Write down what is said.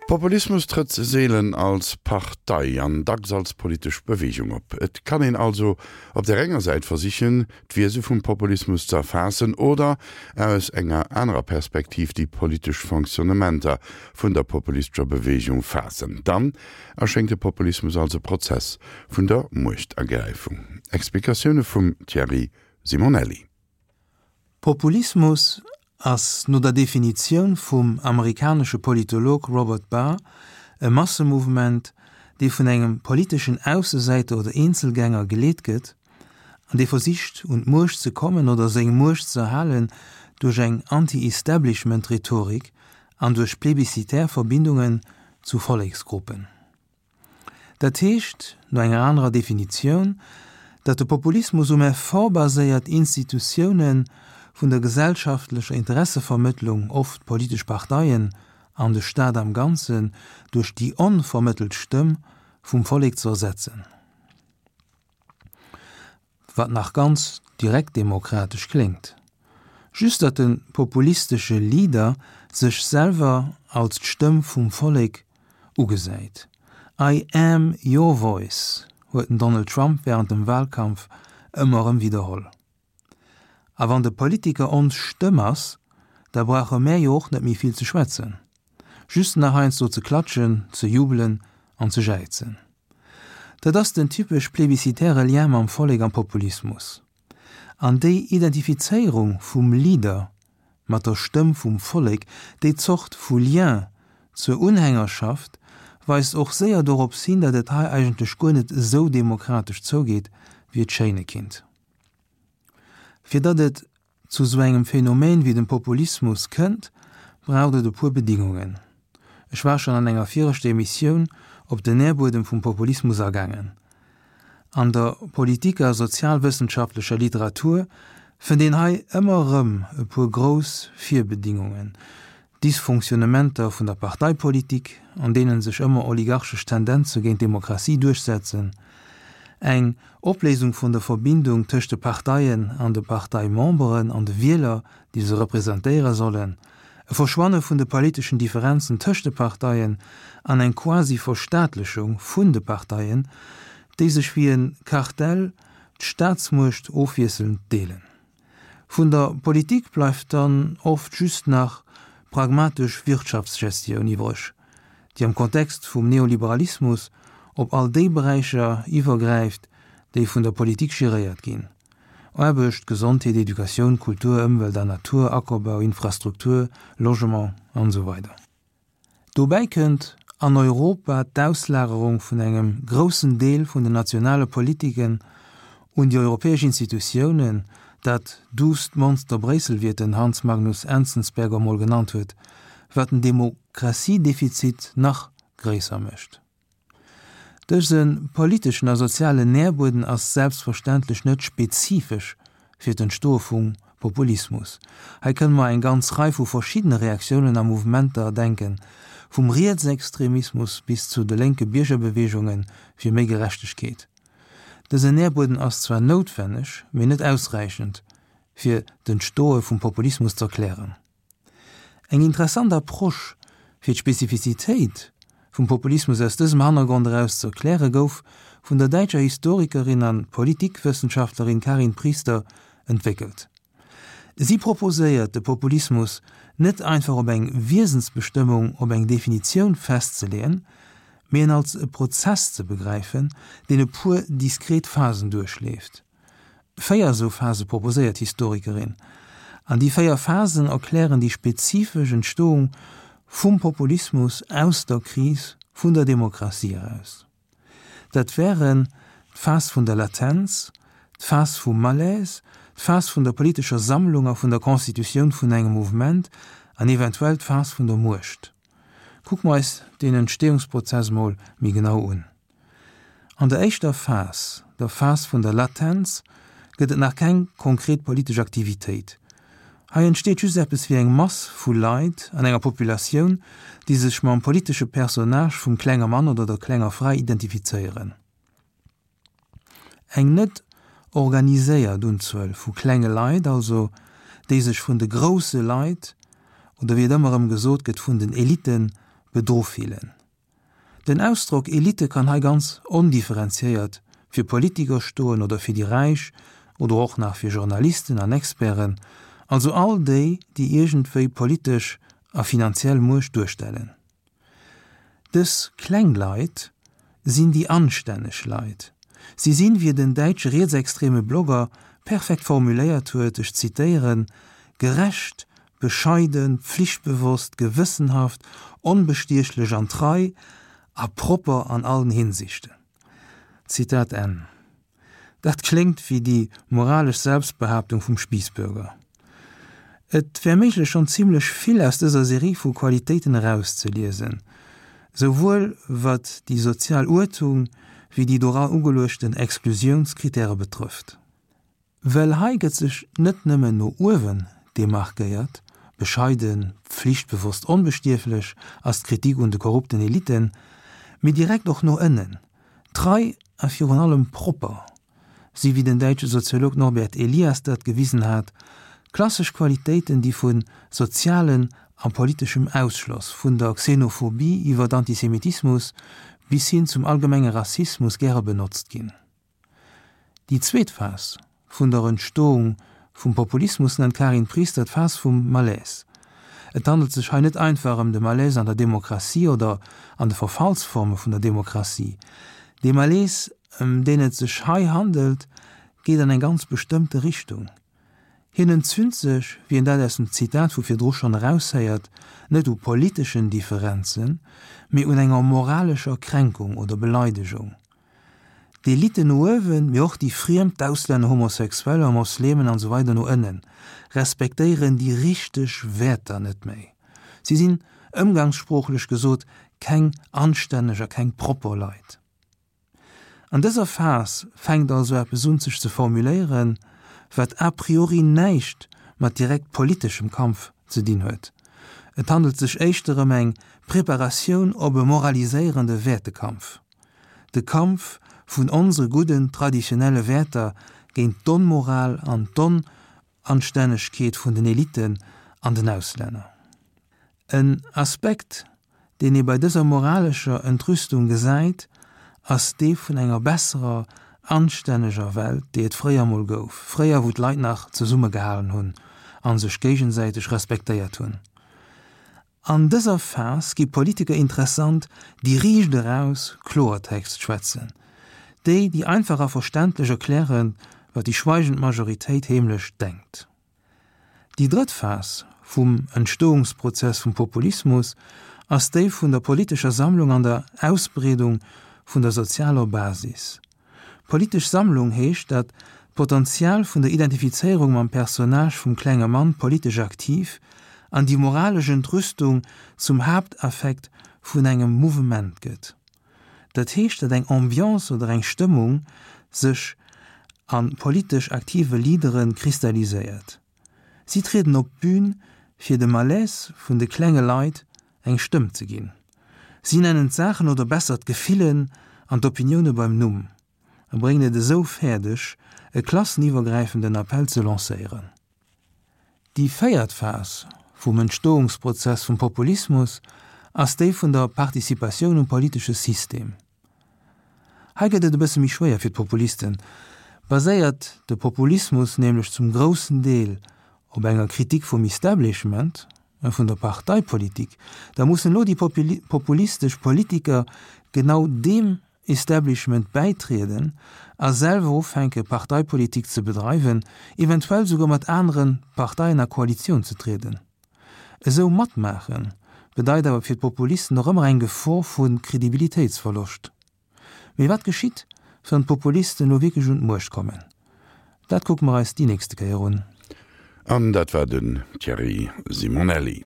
Populismus trëtt seelen als Partei an dacks als politesch Beweegung op. Et kann een also op där enger Säit versichen, d'Wiese vum Populismus ze erfaassen oder aus enger anerer Perspektiv déi politesch Fonctionnementer vun der populistescher Beweegung faassen. Dann erschéngt de Populismus als e Prozess vun der Muechtergräifung. Explikatioune vum Thierry Simonelli. Populismus ass no der Definitioun vum amerikanesche Politolog Robert Barr e Massemouvement, dee vun engem politeschen Aussesäiter oder Eenzelgänger geleet gëtt an dee versicht un d'Muecht ze kommen oder seng Muecht ze erhalen duerch eng Anti-Establishment-Rhetorik an duerch plebiscitär Verbindungen zu Volleksgruppen. Dat heescht, no enger anerer Definitioun, datt de Populismus um Effort baséiert, Institutioune vun der gesellschaftlecher Interessevermëttlung, oft politesch Parteien an de Staat am Ganzen, duerch déi onvermëttelt Stëmm vum Vollek ze ersetzen. Wat nach ganz direktdemokratesch kléngt. Just datt de populistesche Leader sech selwer als d'Stëmm vum Vollek ugesäit. I am your voice, huet den Donald Trump wärend dem Walkampf ëmmer erëm widderholl. A wann de Politiker ons Stëmm ass, da brauche mär jo och net méi vill ze schwätzen. Just nach heiansdo ze klatschen, ze jubelen an ze jäizen. Dat ass den typesch plebiscitäre Lien mam Vollek am Populismus. An déi Identifizéierung vum Leader mat der Stëmm vum Vollek, déi Zort vu Lien zur Unhängerschaft, weist och séier dorops hin, datt et hei eigentlech guer net esou demokratesch zougeet, wéi et schéine kinnt. Fir datt et zu sou engem Phänomen wéi dem Populismus kënnt, braucht et e puer Bedingungen. Ech war schonn an enger viregter Emissioun op den Nährbuedem vum Populismus agaangen. An der Politik a sozialwëssenschaftlecher Literatur fënnt een hei ëmmer erëm e puer grouss Virbedingungen, Dysfonctionnementer vun der Parteipolitik, an deene sech ëmmer oligarchesch Tendenze géint d'Demokratie duerchsetzen, eng Opléisung vun der Verbindung tëscht de Parteien an de Parteimemberen an de Wieler, déi se representéiere sollen, e Verschwanne vun de politeschen Differenzen tëscht de Parteien an eng Quasi-Verstaatlechung vun de Parteien, déi sech wéi e Kartell d'Staatsmuecht ofwiesselnd deelen. Vun der Politik bleift dann oft just nach pragmatesch Wirtschaftsgestioun iwwreg, déi am Kontext vum Neoliberalismus op all déi Beräicher iwwergräift, déi vun der Politik geréiert ginn, Aarbecht, Gesondheet, Educatioun, Kultur, Ëmwelt a Natur, Ackerbau, Infrastruktur, Logement an esou weider. Dobäi kënnt an Europa d'Auslagerung vun engem groussen Deel vun den nationale Politiken un déi europäesch Institutiounen, dat duusst Monster Bréissel, wéi et den Hans Magnus Enzensberger mol genannt huet, wat den Demokratiedefizit nach gréisser mécht. Dëse politeschen a sozialen Nährbueden ass selbstverständlech net spezifesch fir d'Entstoe vum Populismus. Hei kënne mer eng ganz Rei vu verschiddene Reaktiounen a Mouvementer denken, vum Rietsextremismus bis zu de lénke Biergerbeweegunge fir méi Gerechtegkeet. Dësen Nährbueden ass zwar noutwenneg, mee net ausräichend, fir d'Entstoe vum Populismus z'erklären. Eng interessant Approche fir d'Spezifizitéit vum Populismus aus dësem Hannergrond eraus ze erkläre gouf vun der däitscher Historikerin an Politikwëssenschaftlerin Karin Priester entwéckelt. Si proposéiert de Populismus net einfach op eng Wiesensbestëmmung, op eng Definitioun festzeleeën, mee en als e Prozess ze begräifen, deen e puer diskret Phasen duerchleeft. 4 esou Phase proposéiert d'Historikerin. An déi 4 Phasen erklären déi spezifesch Entstoung vum Populismus aus der Kris vun der Demokratie eraus. Dat wären d'Phas vun der Latenz, d'Phas vum Malaise, d'Phas vun der politescher Sammlung a vun der Constitutioun vun engem Mouvement an eventuell d'Phas vun der Muecht. Kucke mer eis deen Entstehungsprozess mol méi genau un. An der éischter Phas, der Phas vun der Latenz, gëtt et nach keng konkret politesch Aktivitéit. Hei entsteet just eppes wéi eng Mass vu Leit an enger Populatioun, déi sech mam politesche Personnage vum klenge Mann oder der klenger Fra identifizéieren. Eng net organiséiert Unzuel vu klenge Leit also, déi sech vun de grousse Leit, oder wéi et ëmmer erëm gesot gëtt, vun den Elitten, bedru fillen. Den Ausdrock Elite kann hei ganz ondifferenziéiert fir Politiker stoen oder fir déi Räich oder och nach fir Journalisten an Experten, also all déi, déi iergendwéi politesch a finanziell Muecht duerstellen. Dës kleng Leit sinn déi anstänneg Leit. Si sinn, wéi et en däitsche rietsextreme Blogger perfekt formuléiert huet, ech zitéieren, gerecht, bescheiden, pflichtbewosst, gewëssenhaft, onbestiechlech an trei a propper an allen Hinsichten. Zitat Enn. Dat kléngt wéi déi moralesch Selbstbehaaptung vum Spiessbürger. Et wär méiglech schonn zimlech vill aus dëser Serie vu Qualitéiten erauszeliesen, souwuel wat déi sozial Uertung wéi déi dora ugeluechten Exklusiounskritäre betrëfft. Well hei gëtt sech net nëmmen no uewen demarkéiert, bescheiden, pflichtbewosst, onbestierflech ass d'Kritik un de korrupten Eliten, mee direkt och no ënnen, trei a virun allem propper si wéi den däitsche Soziolog Norbert Elias dat gewisen hat, klassesch Qualitéiten, déi vu sozialen a politeschem Ausschloss, vun der Xenophobie iwwer Antisemitismus bis hin zum allgemenge Rassismus gäre benotzt ginn. Déi zweet Phas vun der Entstoung vum Populismus nennt d'Karin Priester d'Phas vum Malaise. Et handelt sech hei net einfach ëm de Malaise an der Demokratie oder an de Verfallsforme vun der Demokratie. Dee Malaise, ëm deen et sech hei handelt, geet an eng ganz bestëmmte Richtung. Hien entzünt sech, wéi een dat aus dem Zitat vu virdru schonn eraushéiert, net u politeschen Differenzen, mee un enger moralescher Kränkung oder Beleidegung. D'Eliten no uewen, mee och déi Friem, d'Auslänner, Homosexueller, Moslemen an esou weider no ënnen, respektéieren déi richteg Wäerter net méi. Si sinn, ëmgangssproochlech gesot, keng anstänneg a keng propper Leit. An dëser Phas fänkt also eppes un sech ze formuléieren, wat a priori näischt mat direkt politeschem Kampf ze dinn huet. Et handelt sech éischter ëm eng Preparatioun op e moraliséierende Wäertekampf. De Kampf vun onsere gudden traditionelle Wäerter géint d'Onmoral an d'Onanstännegkeet vun den Eliten an den Auslänner. En Aspekt, deen ee bei dëser moralescher Entrüstung gesäit, ass dee vun enger besserer, anstänneger Welt, déi et fréier mol gouf, fréier wou d'Leit nach zesummegehalen hunn a sech géigesäiteg respektéiert hunn. An dëser Phas gi Politiker interessant, déi riicht eraus Kloertext schwätzen, déi, déi einfach a verständlech erklären, wat déi schweigend Majoritéit heemlech denkt. Déi drëtt Phas vum Entstoungsprozess vum Populismus ass déi vun der politescher Sammlung an der Ausbreedung vun der sozialer Basis. Politesch Sammlung heescht, datt d'Potenzial vun der Identifizéierung mam Personnage vum klenge Mann politesch aktiv an déi moralesch Entrüstung zum Haaptaffekt vun engem Mouvement gëtt. Dat heescht, datt eng Ambiance oder eng Stëmmung sech a politesch aktive Leadere kristalliséiert. Si trieden op d'Bün, fir de Malaise vun de klenge Leit eng Stëmm ze ginn. Si nennen d'Saachen oder besser d'Gefillen an d'Opinioune beim Numm a bréngen et esou fäerdeg, e klasseniwwergräifenden Appell ze lancéieren. Déi véiert Phas vum Entstoungsprozess vum Populismus ass déi vun der Participatioun um politesche System. Hei gëtt et e bësse méi schwéier fir d'Populisten. Baséiert de Populismus nämlech zum groussen Deel op enger Kritik vum Establishment, vun der Parteipolitik, da mussen elo déi populistesch Politiker genau deem Establishment bäitrieden a selwer ufänke Parteipolitik ze bedreiwen, eventuell souguer mat anere Parteien a Koalitioun ze trieden. Esou matmaachen bedeit awer fir d'Populisten och ëmmer eng Gefor vu Kredibilitéitsverloscht. Mee wat geschitt, wann d'Populisten elo wierklech un d'Muecht kommen? Dat kucke mer eis déi nächste Kéier un. An dat war den Thierry Simonelli.